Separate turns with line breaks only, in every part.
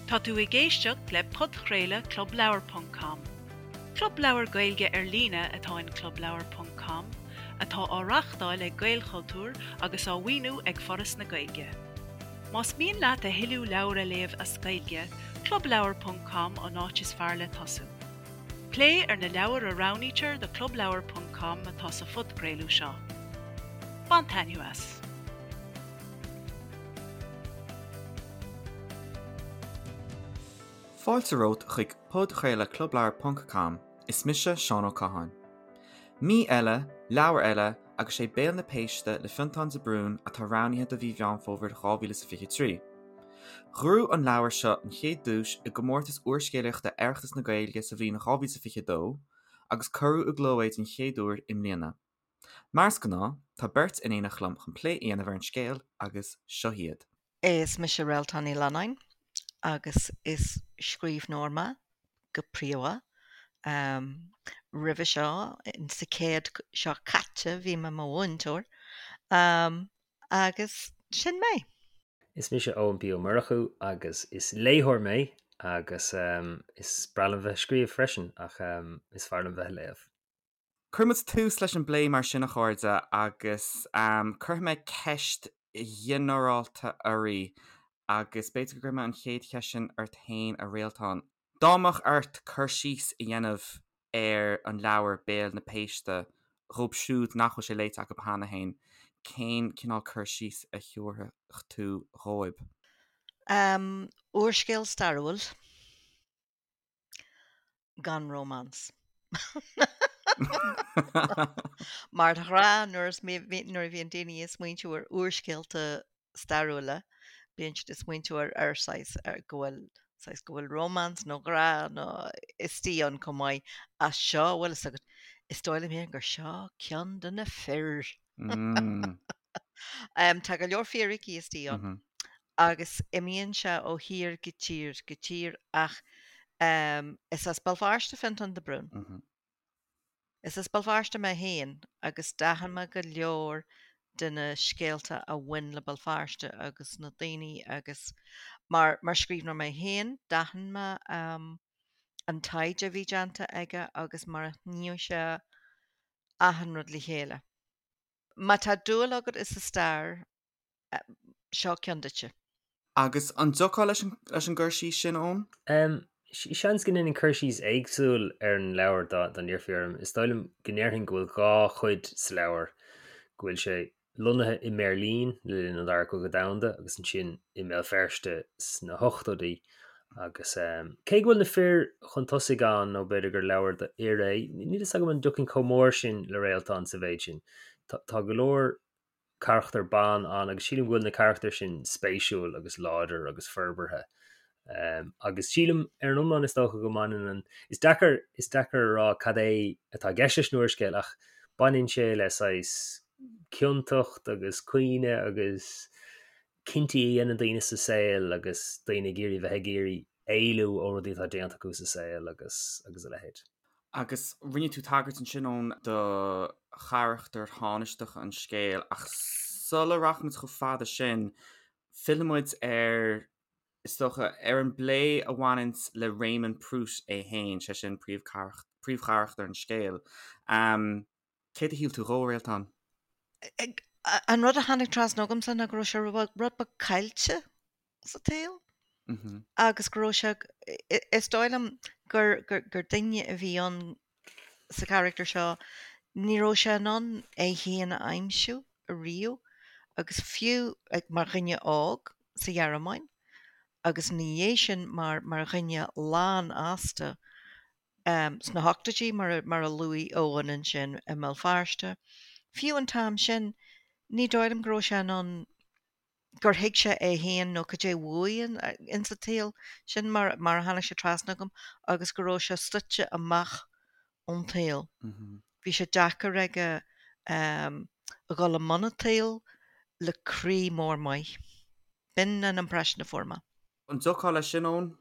Tá tú ag éisteacht le podchraoladh Club Leabhar ponc com. Club leabhar Gaeilge ar líne atá in Club Leabhar ponc com, atá á reáchtáil ag Gaelchultúr agus á mhaoiniú ag Foras na Gaeilge. Más mian leat a thuilleadh leabhar a léamh as Gaeilge, Club Leabhar ponc com an áit is fearr le tosú. Plé ar na leabhair a roghnaítear do Club Leabhar ponc com atá sa phodchraoladh seo. Bain taitneamh as!
Fáilte romhat chuig podchraoladh Club Leabhar ponc com, is mise Seán Ó Catháin. Mí eile, leabhar eile agus sé Béal na Péiste le Fionntán de Brún atá roghnaithe do mhí Mheán Fómhair 2023. Ghnóthaigh an leabhar seo an chéad duais i gcomórtas úrscéalaíochta Oireachtas na Gaeilge sa bhliain 2022 agus cuireadh i gcló é den chéad uair i mbliana. Mar is gnáth, tá beirt in éineacht liom chun plé a dhéanamh ar an scéal agus seo iad.
Is mise Réaltán Ní Leannáin agus is scríbhneoir mé go príomha. Roimhe seo, sa chéad seo caite, bhí mé i mo mhúinteoir agus sin mé.
Is mise Eoin P Ó Murchú agus is léitheoir mé agus is breá liom bheith ag scríobh freisin ach is fearr liom bheith ag léamh.
Cuirfidh muid tús leis an bplé mar sin a chairde agus cuirfidh mé ceist ghinearálta oraibh agus b'fhéidir go gcuirfidh mé an chéad cheist sin ort féin a Réaltán. Dá mbeadh ort cur síos a dhéanamh ar an leabhar Béal na Péiste dhóibh siúd nach bhfuil sé léite acu cheana féin, cén cineál cur síos a thiúrfadh tú dhóibh?
Úrscéal stairiúil. Gan rómáns. Mar de ghnáth nuair nuair a bhíonn daoine ag smaointiú ar úrscéalta stairiúla, bíonn siad ag smaointiú ar ar saghas ar go bhfuil saghas go bhfuil rómáns nó grá nó istigh ann chomh maith. Ach seo, bhfuil fhios agat, is dóigh liom féin gur seo ceann de na fir. Tá go leor fíricí istigh ann. agus imíonn sé ó thír go tír go tír ach is as Béal Feirste Fionntán de Brún. Is as Béal Feirste mé féin agus d'aithin mé go leor de na scéalta a bhain le Béal Feirste agus na daoine agus mar mar scríbhneoir mé féin d'aithin mé an taighde a bhí déanta aige agus mar a shníomh sé achan rud le chéile. Má tá dúil agat i sa stair Seo ceann duitse.
Agus an dtiocfá leis an gcur síos sin, Eoin?
Seans go ndéanfainn cur síos éagsúil ar an leabhar dá n-iarrfaí orm. Is dóigh liom go ndéarfainn go bhfuil dhá chuid sa leabhar, go bhfuil sé lonnaithe i mBeirlín le linn an Dara Cogadh Domhanda agus ansin i mBéal Feirste sna hochtóidí. Agus cé go bhfuil na fir chun tosaigh ann, nó b'fhéidir gur leabhar do fhir é, níl fhios agam an dtiocfainn chomh mór sin le Réaltán sa mhéid sin. Tá go leor carachtar ban ann agus sílim go bhfuil na carachtair sin spéisiúil agus láidir agus forbartha. Agus sílim ar an iomlán is dócha go mbaineann an, is deacair, is deacair a rá cad é atá i gceist leis an úrscéal ach baineann sé le saghas ciontacht agus caoineadh agus cinntí a dhéanann daoine sa saol agus daoine ag iarraidh bheith ag iarraidh éalú ó rudaí atá déanta acu sa saol agus agus a leithéid.
Agus rinne tú tagairt ansin, Eoin, do charachtar thánaisteach an scéil, ach sula rachaimid chomh fada sin, fillfidh muid ar, is dócha, ar an bplé a bhaineanns le Réamonn Prút é féin, sé sin príomhcharachtar an scéil. Céard a shíl tú dhó, a Réaltán?
An rud a tháinig trasna agamsa ná go raibh sé rud beag caillte sa tsaol agus go raibh sé, is dóigh liom gur gur duine a bhí ann sa charachtar seo, ní raibh sé in ann é féin a aimsiú ariamh agus fiú mar dhuine óg sa Ghearmáin agus ina dhiaidh sin mar mar dhuine lánfhásta sna hochtóidí mar mar a luaigh Eoin ansin i mBéal Feirste, fiú an t-am sin ní dóigh liom go raibh sé in ann gur thuig sé é féin nó cad é uaidh ins an tsaol. Sin mar mar a tháinig sé trasna agam agus go raibh sé suite amach ón tsaol. Bhí sé deacair aige a dhul i mbun an tsaoil le croí mór maith. B'in an impression a fuair mé.
An dtiocfá leis sin, Eoin?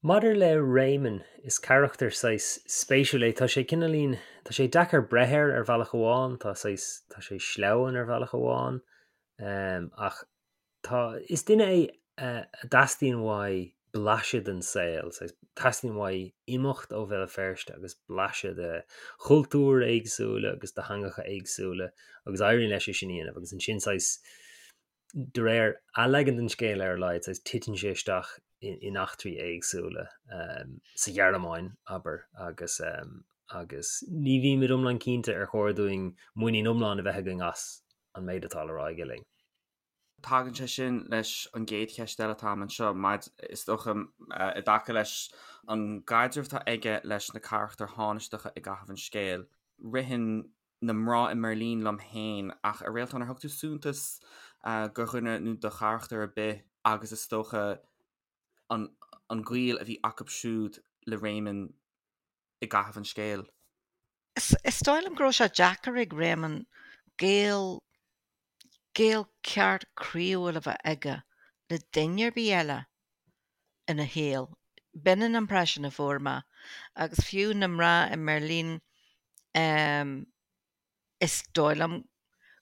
Maidir le Réamonn, is carachtar saghas spéisiúil é. Tá sé cineáilín, tá sé deacair breith air ar bhealach amháin, tá saghas, tá sé sleamhain ar bhealach amháin, ach tá, is duine é a dteastaíonn uaidh blaiseadh den saol, saghas, teastaíonn uaidh imeacht ó Bhéal Feirste agus blaiseadh de chultúir éagsúla agus de theangacha éagsúla agus éiríonn leis é sin a dhéanamh agus ansin saghas, de réir a leagan den scéal ar a laghad, saghas, titeann sé isteach in eachtraí éagsúla sa Ghearmáin, abair, agus agus ní bhímid iomlán cinnte ar chóir dúinn muinín iomlán a bheith againn as an méid atá le rá aige linn.
Tagann sé sin leis an gcéad cheist eile atá agam anseo, is dócha, i dtaca leis an gcaidreamh atá aige leis na carachtair thánaisteacha i gcaitheamh an scéil. Ritheann na mná i mBeirlín liom féin, ach a Réaltán, ar thug tú suntas do dhuine nó do charachtar ar bith agus is dócha an an gaol a bhí acu siúd le Réamonn i gcaitheamh an scéil?
Is dóigh liom go raibh sé deacair ag Réamonn gaol, gaol ceart croíúil a bheith aige le duine ar bith eile ina shaol. B'in an impression a fuair mé. Agus fiú na mná i mBeirlín, Is dóigh liom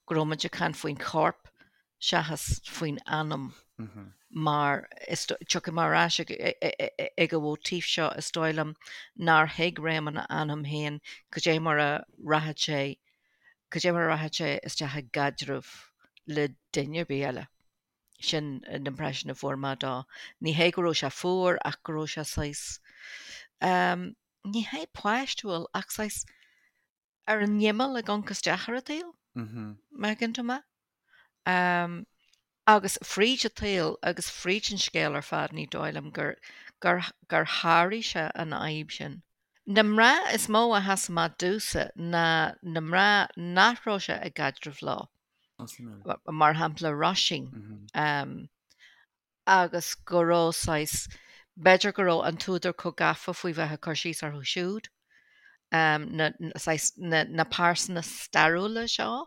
go raibh muid ag caint faoin chorp seachas faoin anam mar is tiocfaidh mé ar ais ag an mhóitíf seo, is dóigh liom nár thuig Réamonn a anam féin cad é mar a rachadh sé, cad é mar a rachadh sé isteach i gcaidreamh le duine ar bith eile. Sin an impression a fuair mé dó. Ní hé go raibh sé fuar ach go raibh sé saghas, ní hé páistiúil ach saghas, ar an imeall ag amharc isteach ar an tsaol, má thuigeann tú mé. Agus fríd an tsaol agus fríd an scéal ar fad ní dóigh liom gur, gur, gur sháraigh sé an fhadhb sin. Na mná is mó a sheas amach domhsa ná na mná nach raibh sé i gcaidreamh leo. Mar shampla Róisín. agus go raibh saghas, b'fhéidir go raibh an t-údar chomh gafa faoi bheith ag cur síos orthu siúd, na, saghas, na, na pearsana stairiúla seo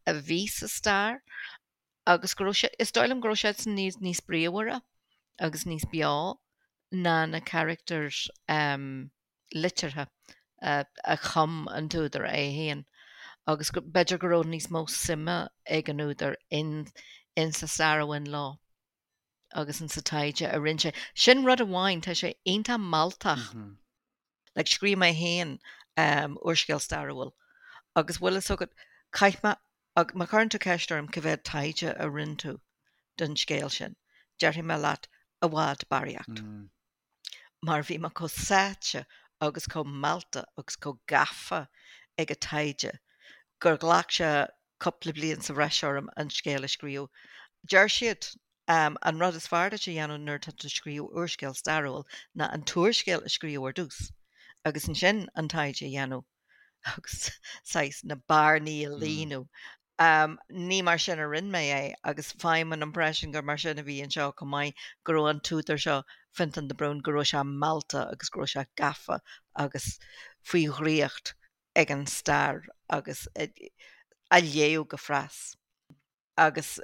a bhí sa stair agus go raibh sé, is dóigh liom go raibh siadsan níos, níos bríomhaire agus níos beo ná na carachtair liteartha a chum an t-údar é féin agus b'fhéidir go raibh níos mó suime ag an údar in insa stair a bhain leo agus insa taighde a rinne sé. Sin rud amháin, tá sé iontach mealltach. Like scríobh mé féin úrscéal stairiúil agus bhfuil fhios agat, chaith mé, má chuireann tú ceist orm cá mhéad taighde a rinne tú don scéal sin, déarfaidh mé leat i bhfad barraíocht. mar bhí mé chomh sáite agus chomh meallta agus chomh gafa ag an taighde gur ghlac sé cúpla bliain sa bhreis orm an scéal a scríobh. Deir siad, an rud is fearr duit a dhéanamh nuair atá tú ag scríobh úrscéal stairiúil ná an t-úrscéal a scríobh ar dtús agus ansin an taighde a dhéanamh agus saghas na bearnaí a líonadh. Ní mar sin a rinne mé é agus faighim an impression gur mar sin a bhí anseo chomh maith, go raibh an t-údar seo, Fionntán de Brún, go raibh sé meallta agus go raibh sé gafa agus faoi dhraíocht ag an stair agus á léamh go fras. Agus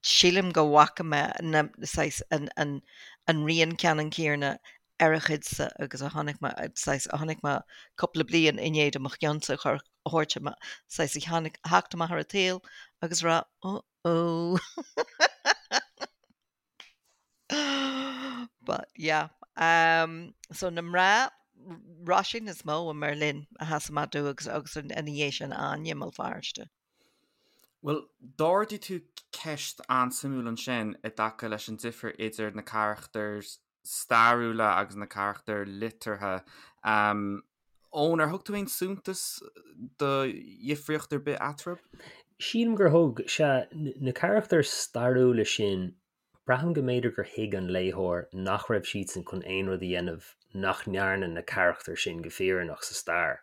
sílim go bhfaca mé na, saghas, an, an rian ceannann céanna ar a chuidse agus a chonaic mé, saghas, a chonaic mé cúpla bliain i ndiaidh do mo cheannsa a chur, a thabhairt amach, saghas, a tháinig, a theacht amach ar an tsaol agus a rá, oh oh. But yeah. Um, so na mná, Róisín is mó i mBerlin a sheas amach domh agus, agus ina dhiaidh sin Áine i mBéal Feirste.
Bhuel, d'ardaigh tú ceist an-suimiúil ansin i dtaca leis an difear idir na carachtair stairiúla agus na carachtair liteartha. Eoin, ar thug tú aon suntas do dhifríocht ar bith eatarthu?
Sílim gur thug. Sea, na carachtair stairiúla sin Braithim go mb'fhéidir gur thuig an léitheoir nach raibh siadsan chun aon rud a dhéanamh nach ndearna na carachtair sin go fírinneach sa stair.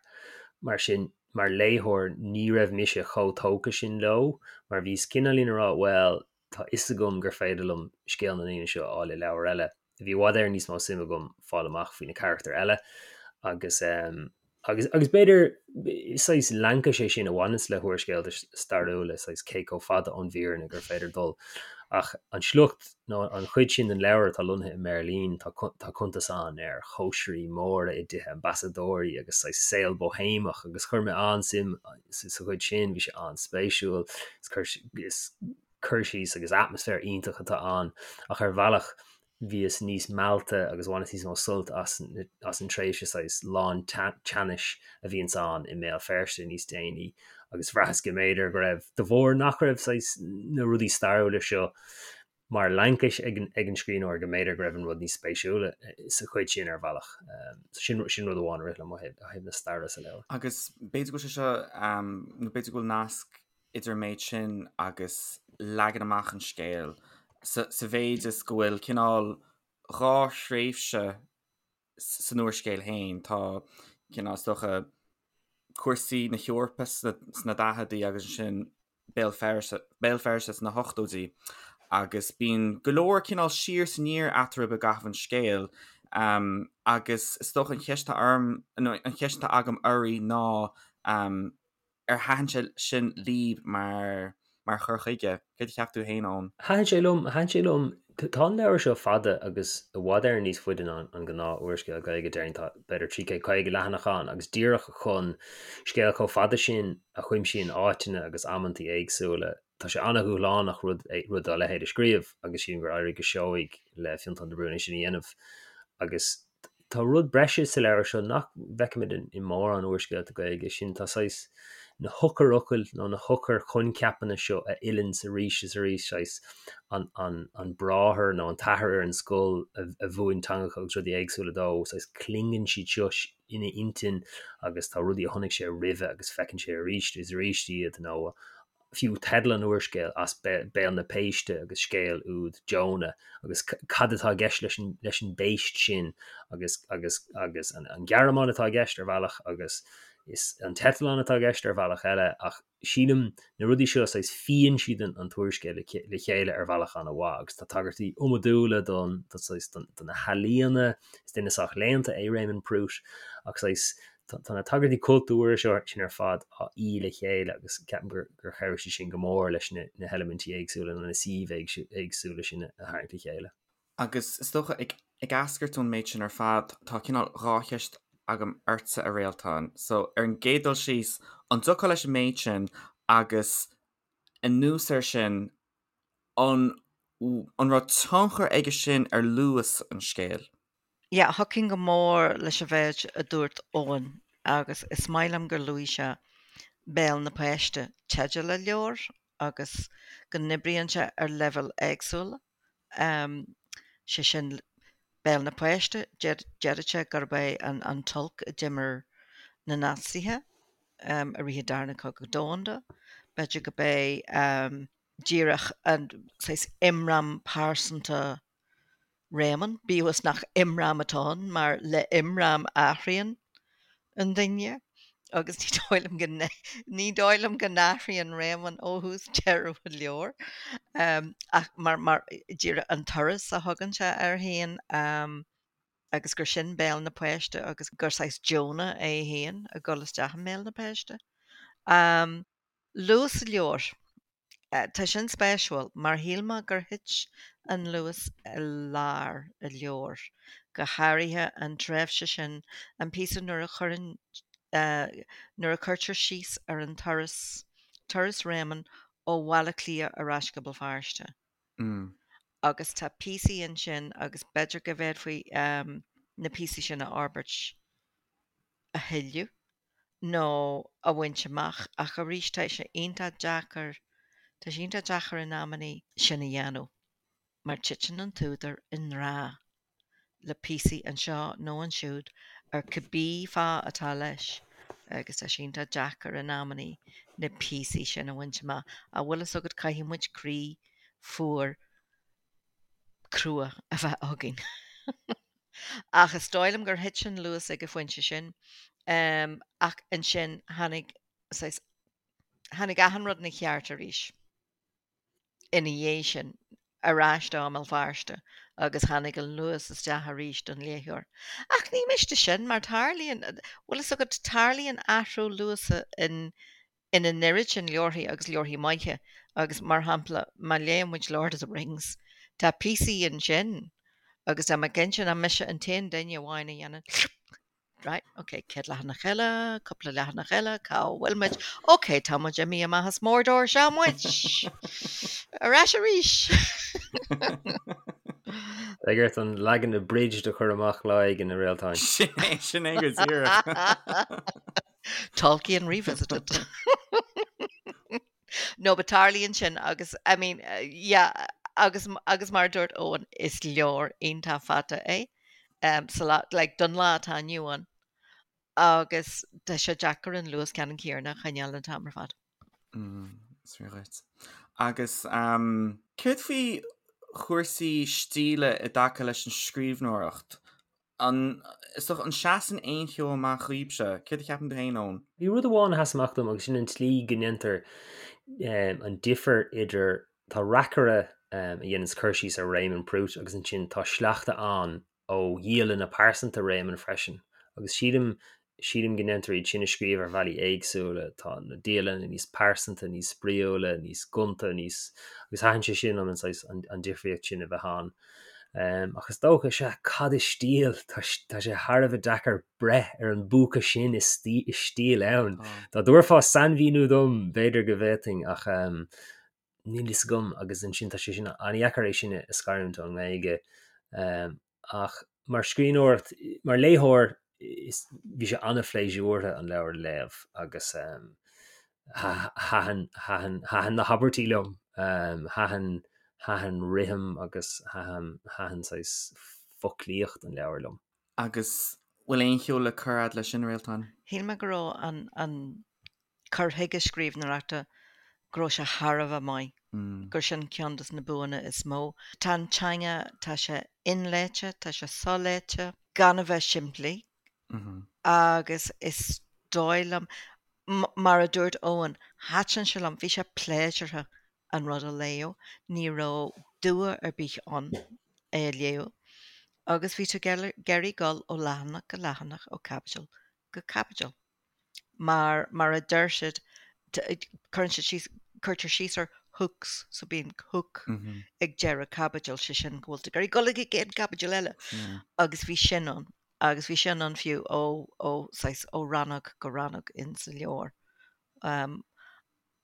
Mar sin, mar léitheoir, ní raibh mise chomh tógtha sin leo, mar bhíos cineáilín ag rá bhuel, tá fhios agam gur féidir liom scéal na ndaoine seo a fháil i leabhar eile. Bhí i bhfad Éireann níos mó suim agam fáil amach faoi na carachtair eile agus Agus, agus b'fhéidir, saghas laincis é sin a bhaineanns le húrscéalta stairiúla, saghas cé chomh fada ón bhfírinne gur féidir dul. Ach an sliocht, nó an chuid sin den leabhar atá lonnaithe i mBeirlín, tá, tá cuntas ann ar chóisirí móra i dtithe ambasadóirí agus saghas saol bóihéamach agus chuir mé an-suim sa chuid sin, bhí sé an-spéisiúil, is cur, is cur síos agus atmaisféar iontach atá ann. Ach ar bhealach. bhíos níos meallta agus bhaineas níos mó sult as as an tréimhse saghas lán teannais a bhíonns ann i mBéal Feirste níos déanaí agus bhraitheas go mb'fhéidir go raibh, de bharr nach raibh saghas na rudaí stairiúla seo mar laincis ag an ag an scríbhneoir, go mb'fhéidir go raibh an rud níos spéisiúla sa chuid sin ar bhealach. So sin sin rud amháin a rith liom ó thaobh ó thaobh na staire sa leabhar.
Agus b'fhéidir go bhfuil sé seo, nó b'fhéidir go bhfuil nasc idir an méid sin agus leagan amach an scéil, sa mhéid is go bhfuil cineál dhá thréimhse san úrscéal féin. Tá cineál, is dócha, cúrsaí na hEorpa sna daicheadaí agus ansin Béal Feirste, Béal Feirste sna hochtóidí agus bíonn go leor cineál siar is aniar eatarthu i gcaitheamh an scéil agus is dócha an cheist atá orm, nó an cheist atá agam oraibh ná Ar thaitin sé sin libh mar mar chur chuige? Céard a cheap tú féin, Eoin?
Thaitin sé liom, thaitin sé liom. Tá an leabhar seo fada agus i bhfad Éireann níos faide ná an gnáth úrscéal Gaeilge, déarfainn tá b'fhéidir 350 leathanach ann agus díreach chun scéal chomh fada sin a chuimsíonn áiteanna agus amantaí éagsúla, tá sé an-dhúshlánach rud rud dá leithéid a scríobh agus sílim gur éirigh go seoigh le Fionntán de Brún é sin a dhéanamh agus Tá rud breise sa leabhar seo nach bhfeicimid i mórán úrscéalta Gaeilge, sin tá saghas na heochairfhocail nó na heochair-choincheapanna seo a fhilleanns arís is arís, saghas an, an, an bráthair nó an t-athair ar an scoil a, a mhúin teangacha agus rudaí éagsúla dó, saghas clingeann siad seo ina intinn agus tá rudaí a chonaic sé roimhe agus feiceann sé arís is arís iad nó fiú teideal an úrscéil, As Béal na Péiste agus scéal úd Jonah agus cad atá i gceist leis an, leis an bpéist sin agus, agus, agus an, an Ghearmáin atá i gceist ar bhealach agus is an t-eitleán atá i gceist ar bhealach eile ach sílim na rudaí seo saghas fíonn siad an, an t-úrscéal le, le chéile ar bhealach an-mhaith agus tá tagairtí iomadúla don, don saghas, don, do na healaíona, is duine sách léannta é Réamonn Prút ach saghas Tá na tagairtí cultúrtha seo sin ar fad á fhí le chéile agus ceapaim gur chabhraigh sé sin go mór leis na heilimintí éagsúla nó na suímh éagsúla sin a tharraingt le chéile.
Agus is dócha, ag eascairt ón méid sin ar fad, tá cineál dhá cheist agam ortsa, a Réaltán. So, ar an gcéad dul síos, an dtiocfá leis an méid sin agus anuas air sin, an an raibh tionchar aige sin ar luas an scéil?
Yeah, thiocfainn go mór leis an mhéid a dúirt Eoin agus is maith liom gur luaigh sé Béal na Péiste, teideal an leabhair, agus go n-oibríonn sé ar leibhéil éagsúla. Sé sin, Béal na Péiste, déarfadh sé gurb é an t-olc a d'imir na Naitsithe i rith an Darna Cogadh Domhanda. B'fhéidir gurb é díreach an saghas imram pearsanta Réamonn, bíodh is nach imram atá ann, mar le imram athraíonn an duine agus ní dóigh liom go ní dóigh liom go n-athraíonn Réamonn ó thús deireadh an leabhair ach mar mar díreach an turas a thugann sé air féin agus gur sin béal na péiste agus gur saghas Jonah é féin ag dul isteach i mbéal na péiste. Luas an leabhair. Tá sin spéisiúil, mar shíl mé gur thit an luas i lár an leabhair, go háirithe an tréimhse sin, an píosa nuair a chuireann, nuair a cuirtear síos ar an turas, turas Réamonn ó Bhaile Átha Cliath ar ais go Béal Feirste. Agus tá píosaí ansin agus b'fhéidir go bhféadfaí na píosaí sin a fhorbairt a thuilleadh. nó a bhaint amach ach arís tá sé iontach deacair, tá sé iontach deacair in amannaí sin a dhéanamh mar titeann an t-údar i ngrá le píosaí anseo nó ansiúd ar cibé fáth atá leis agus tá sé iontach deacair in amannaí na píosaí sin a bhaint amach. Ach bhfuil fhios agat caithfidh muid croí fuar crua a bheith againn. Ach is dóigh liom gur thit an luas ag an phointe sin. Ach ansin tháinig, saghas, tháinig achan rud ina cheart arís ina dhiaidh sin, ar ais dó i mBéal Feirste agus tháinig an luas isteach arís don léitheoir. Ach ní miste sin mar tarlaíonn, bhfuil fhios agat, tarlaíonn athrú luasa in in an oiread sin leabharthaí agus leabharthaí maithe agus mar shampla má léann muid Lord of the Rings tá píosaí ansin agus tá mé cinnte nach mise an t-aon duine amháin a dhéanann right ok céad leathanach eile, cúpla leathanach eile, cá bhfuil muid? Ok tá muid imithe amach as Mordor, seo muid! Ar ais arís!
Beidh ort an leagan abridged a chur amach lá éigin, a Réaltáin.
Sin é, sin é go díreach.
Tolkien revisited. No, but tarlaíonn sin agus, I mean, yeah, agus, agus mar a dúirt Eoin, is leabhar iontach fada é, um, sa lá, like, don lá atá inniu ann. Agus tá sé deacair an luas ceannann céanna a choinneáil an t-am ar fad.
Is fíor dhuit. Agus céard faoi chúrsaí stíle i dtaca leis an scríbhneoireacht? An, is dócha, an seasann aon cheo amach dhaoibhse? Céard a cheapann tú féin, Eoin?
Bhí rud amháin a sheas amach dom agus sin an tslí go ndéantar an difear idir, tá reacaire a dhéananns cur síos ar Réamonn Prút agus ansin tá sleachta ann ó dhialanna pearsanta Réamonn freisin, agus sílim, sílim go ndéantar iad sin a scríobh ar bhealaí éagsúla, tá na dialanna níos pearsanta, níos spraíúla, níos gonta, níos, agus thaitin sé sin liom, an saghas, an, an difríocht sin a bheith ann. Ach is dócha, sea, cad is stíl? Tá, tá sé thar a bheith deacair breith ar an bpúca sin is is stíl ann. Dá dtabharfá sainmhíniú dom, b'fhéidir go bhféadfainn, ach níl fhios agam agus ansin tá sé sin an-dheacair é sin a scarúint ón nGaeilge. Ach mar scríbhneoireacht, mar léitheoir, is, bhí sé an-phléisiúrtha an leabhar a léamh agus thaitin, thaitin, thaitin na habairtí liom, thaitin, thaitin rithim agus thaitin, thaitin saghas foclaíocht an leabhair liom.
Agus bhfuil aon cheo le cur a'd leis sin, a Réaltán?
Shíl mé go raibh an, an cur chuige scríbhneoireachta, go raibh sé thar a bheith maith, gur sin ceann de na buanna is mó. Tá an teanga, tá sé inléite, tá sé soléite, gan a bheith simplí agus is dóigh liom, mar a dúirt Eoin, thaitin sé liom, bhí sé pléisiúrtha an rud a léamh, ní raibh dua ar bith ann é a léamh agus bhí tú ag iarraidh dul ó leathanach go leathanach, ó chaibidil go caibidil. Mar, mar a deir siad, cuireann siad síos, cuirtear síos ar hooks, so bíonn hook ag deireadh caibidil, sé sin go bhfuil tú ag iarraidh dul ag an gcéad caibidil eile. Agus bhí sin ann, agus bhí sin ann fiú ó, ó, saghas, ó rannóg go rannóg in sa leabhar.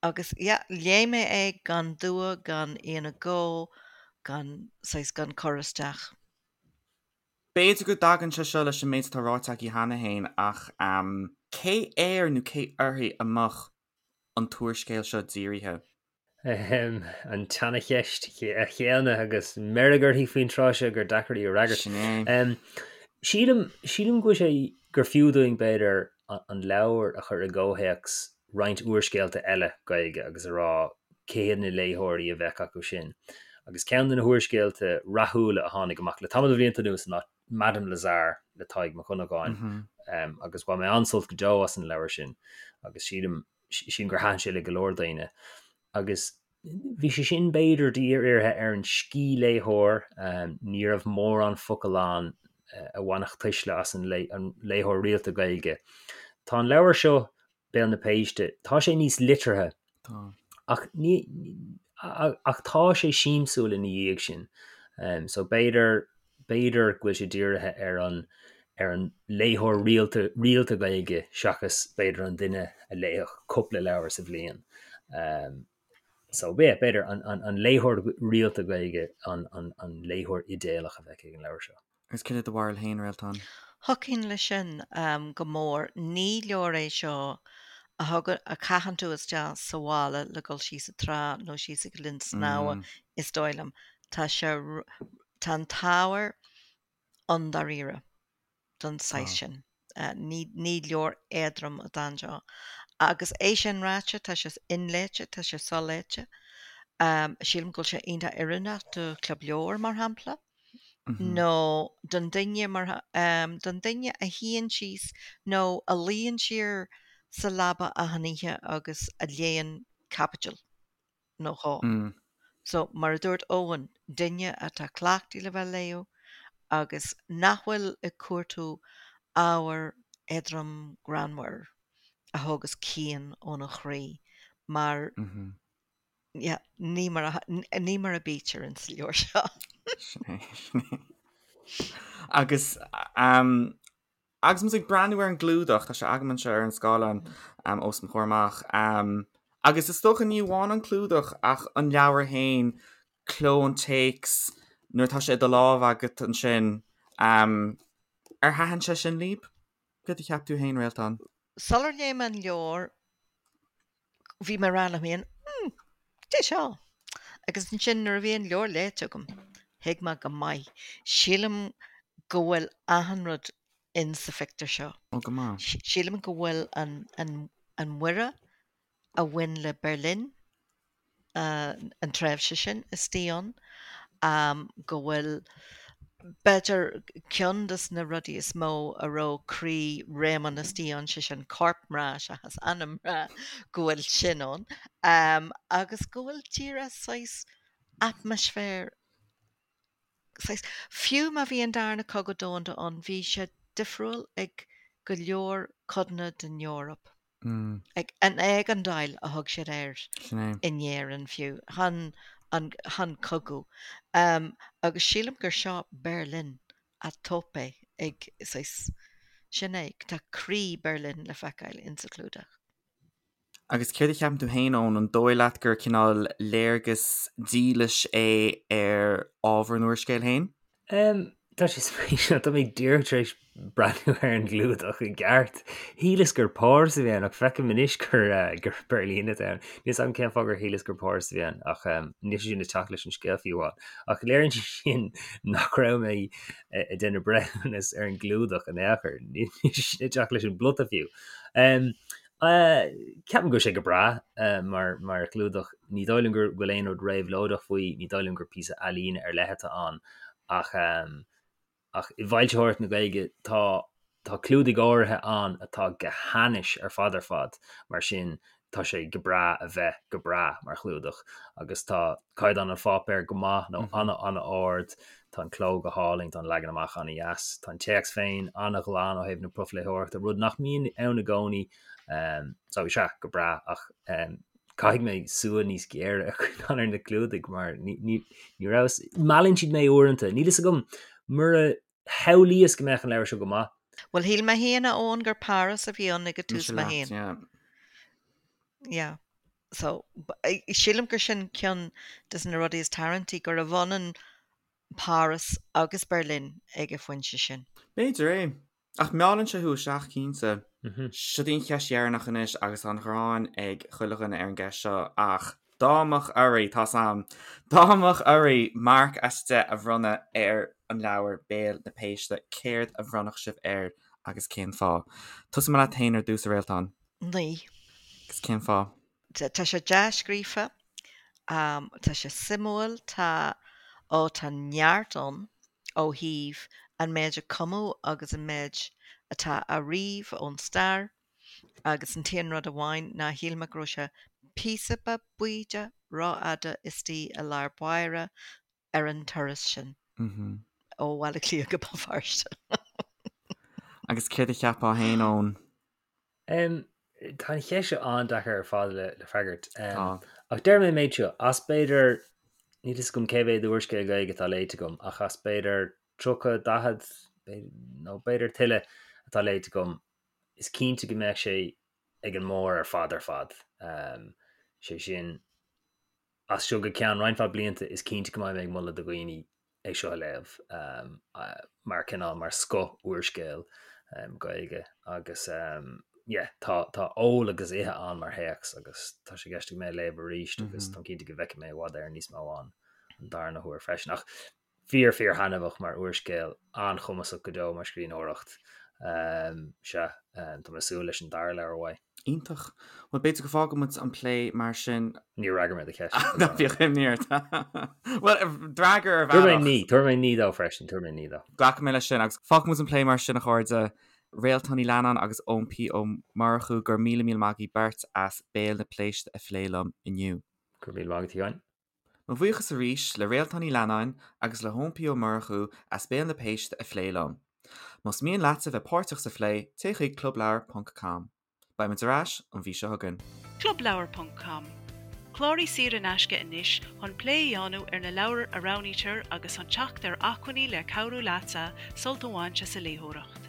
Agus yeah, léigh mé é gan dua, gan aon agó, gan, saghas, gan cur isteach.
B'fhéidir go dtagann sé seo leis an méid atá ráite agaibh cheana féin ach cé air nó cé uirthi a mbeadh an t-úrscéal seo dírithe?
An tseanacheist chéanna agus meirg uirthi faoin tráth seo gur deacair í a fhreagairt.
Sin é.
Sílim, sílim go bhfuil sé, gur fiú dúinn b'fhéidir an leabhar a chur i gcomhthéacs roinnt úrscéalta eile Gaeilge agus a rá cé hiad na léitheoirí a bheadh acu sin. Agus ceann de na húrscéalta rathúla a tháinig amach le tamall de bhlianta anuas ná Madame Lazare le Tadhg Mac Dhonnagáin agus bhain mé an-sult go deo as an leabhar sin agus sílim sílim gur thaitin sé le go leor daoine. Agus bhí sé sin b'fhéidir dírithe ar an scíthléitheoir, ní raibh mórán focal ann a bhainfeadh tuisle as an léitheoir rialta Gaeilge. Tá an leabhar seo Béal na Péiste. Tá sé níos liteartha.
Tá.
Ach ní, ach tá sé siamsúil ina dhiaidh sin. So b'fhéidir, b'fhéidir go bhfuil sé dírithe ar an, ar an léitheoir rialta, rialta Gaeilge seachas b'fhéidir an duine a léifeadh cúpla leabhar sa bhliain. So yeah, b'fhéidir an, an, an léitheoir rialta Gaeilge an, an, an léitheoir idéalach a bheadh ag an leabhar seo.
Agus céard é do bharúil féin, a Réaltán?
Thiocfainn leis sin go mór. Ní leabhar é seo a thugann, a chaitheann tú isteach sa mhála le dul síos an trá nó síos ag an linn snámha, is dóigh liom. Tá sé, tá an t-ábhar ann dáiríre don saghas sin. Ní, ní leabhar éadrom atá anseo. Agus é sin ráite, tá sé inléite, tá sé soléite. Sílim go bhfuil sé iontach oiriúnach do chlub leabhar, mar shampla. nó don duine mar don duine a shuíonn síos nó a luíonn siar sa leaba achan oíche agus a léann caibidil nó dhó. So, mar a dúirt Eoin, duine atá cleachtaithe le bheith ag léamh agus nach bhfuil ag cuartú ábhar éadrom greannmhar a thógas cian óna chroí mar Yeah, ní mar a, ní mar a bítear in sa leabhar seo.
Sin é, sin é. Agus, um, agus muid ag breathnú ar an gclúdach, tá sé agam anseo ar an scáileán um, os mo chomhair amach, um, agus is dócha ní amháin an clúdach ach an leabhar féin, cló an téacs, Nuair atá sé i do lámh agat ansin, ar thaitin sé sin libh? Céard a cheap tú féin, Réaltán?
Sular léigh mé an leabhar, bhí mé ag rá liom féin, 'Hmm, cad é seo? Agus ansin nuair a bhí an leabhar léite agam, thuig mé go maith. Sílim go bhfuil achan rud in sa phictiúr seo.
Ó, go maith.
Sílim go bhfuil an, an, an Mhuire a bhain le Berlin, an tréimhse sin istigh ann, go bhfuil, b'fhéidir, ceann de na rudaí is mó a raibh croí Réamonn istigh ann, sé sin corp mná seachas anam mná, go bhfuil sin ann, agus go bhfuil díreach saghas atmaisféar, saghas, fiú má bhí an Darna Cogadh Domhanda ann, bhí sé difriúil ag go leor codanna den Eoraip. Ag an éigeandáil a thug siad air in Éirinn fiú, chan an chan cogadh. Agus sílim gur seo Berlin à tope ag saghas, sin é, tá croí Berlin le feiceáil insa chlúdach.
Agus céard a cheapann tú féin, Eoin, an dóigh leat gur cineál léargas dílis é ar ábhar an úrscéil féin?
Tá sé spéisiúil, tá mé díreach tar éis breathnú ar an gclúdach i gceart. Shíleas gur Páras a bhí ann ach feicim anois gur gur Beirlín atá ann. Níl 'fhios agam cén fáth gur shíleas gur Páras a bhí ann ach níl sé sin ag teacht leis an scéal fiú amháin. Ach léiríonn sé sin nach raibh mé ag déanamh breithiúnas ar an gclúdach in aon chor. Níl sé sin ag teacht leis an bplota fiú. Ceapaim go bhfuil sé go breá mar mar chlúdach. Ní dóigh liom go bhfuil aon rud réabhlóideach faoi, ní dóigh liom gur píosa ealaíne ar leith atá ann ach ach i bhfoilsitheoireacht na Gaeilge tá tá clúdaigh áirithe ann atá go hainnis ar fad ar fad, mar sin tá sé go breá a bheith go breá mar chlúdach agus tá caighdeán an pháipéir go maith nó an-an-ard, tá an cló go hálainn, tá an leagan amach an-dheas, tá an téacs féin an-ghlan ó thaobh na profléitheoireachta, rud nach mbíonn ann i gcónaí. So is ea, go breá, ach caithfidh mé súil níos géire a choinneáil ar na clúdaigh mar ní raibh, meallann siad mé uaireanta, níl fhios agam, mura shamhlaíos go mbeadh an leabhar seo go maith.
Bhuel, shíl mé féin, a Eoin, gur Páras a bhí ann ag an tús
mé
féin. Yeah. So, sílim gur sin ceann des na rudaí is tarraingtí, gurbh ionann Páras agus Berlin ag an phointe sin.
B'fhéidir é. Ach meallann sé thú isteach, cinnte. Seo í an cheist dheireanach anois agus tá an ghráin ag chuile dhuine ar an gceist seo ach dá mbeadh oraibh, tá's a'm, dá mbeadh oraibh marc as 10 a bhronnadh ar an leabhar Béal na Péiste, céard a bhronnfadh sibh air agus cén fáth? Tosóidh mé leat féin ar dtús, a Réaltán.
9.
Agus cén fáth?
Tá sé dea-scríofa, tá sé suimiúil, tá, ó tá neart ann ó thaobh an méid a cumadh agus an méid atá á ríomh ón stair agus an t-aon rud amháin ná shíl mé go raibh sé píosa beag baoideach rófhada istigh i lár báire ar an turas sin ó Bhaile Átha Cliath go Béal Feirste.
Agus céard a cheapfá féin, Eoin?
Tá an cheist seo an-deacair ar fad le freagairt. Ach déarfaidh mé an méid seo, as b'fhéidir, níl fhios agam cé mhéad úrscéal Gaeilge atá léite agam, ach as b'fhéidir 30, 40, nó b'fhéidir tuilleadh atá léite agam, is cinnte go mbeadh sé ag an mbarr ar fad ar fad. Sé sin, as seo go ceann roinnt mhaith blianta is cinnte go mbeidh mé ag moladh do dhaoine é seo a léamh mar cineál mar scoth úrscéal Gaeilge agus yeah tá tá ól agus ithe ann mar théacs agus tá sé i gceist agam é a léamh arís agus táim cinnte go bhfeicfidh mé i bhfad Éireann níos mó ann an darna huair freisin ach fíor fíor thaitneamhach mar úrscéal, an-chumasach go deo mar scríbhneoireacht. Sea, tá mé ag súil leis an dara leabhar uaidh.
Iontach. Bhuel, b'fhéidir go bhfágfaidh muid an plé mar sin.
Níor fhreagair mé do cheist.
Ná bíodh imní ort. Bhuel, d'fhreagair ar bhealach.
Tabharfaidh mé naoi, tabharfaidh mé naoi dó freisin, tabharfaidh mé naoi dó.
Glacfaidh mé leis sin agus fágfaidh muid an plé mar sin, a chairde. Réaltán Ní Leannáin agus Eoin P. Ó Murchú, go raibh míle míle maith agaibh beirt as Béal na Péiste a phlé liom inniu.
Go raibh míle maith agat, a Sheáin.
Mo bhuíochas arís le Réaltán Ní Leannáin agus le hEoin P. Ó Murchú as Béal na Péiste a phlé liom. Más mian leatsa bheith páirteach sa phlé, téigh chuig clubleabhar ponc com. Beidh muid ar ais an mhí seo chugainn.
Clubleabhar ponc com, Cláraigh saor in aisce anois chun plé a dhéanamh ar na leabhair a roghnaítear agus chun teacht ar acmhainní le cabhrú leatsa sult a bhaint as an léitheoireacht.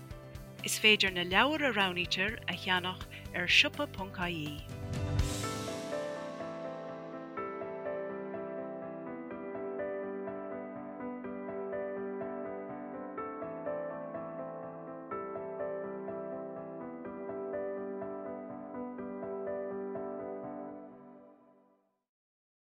Is féidir na leabhair a roghnaítear a cheannach ar siopa.ie.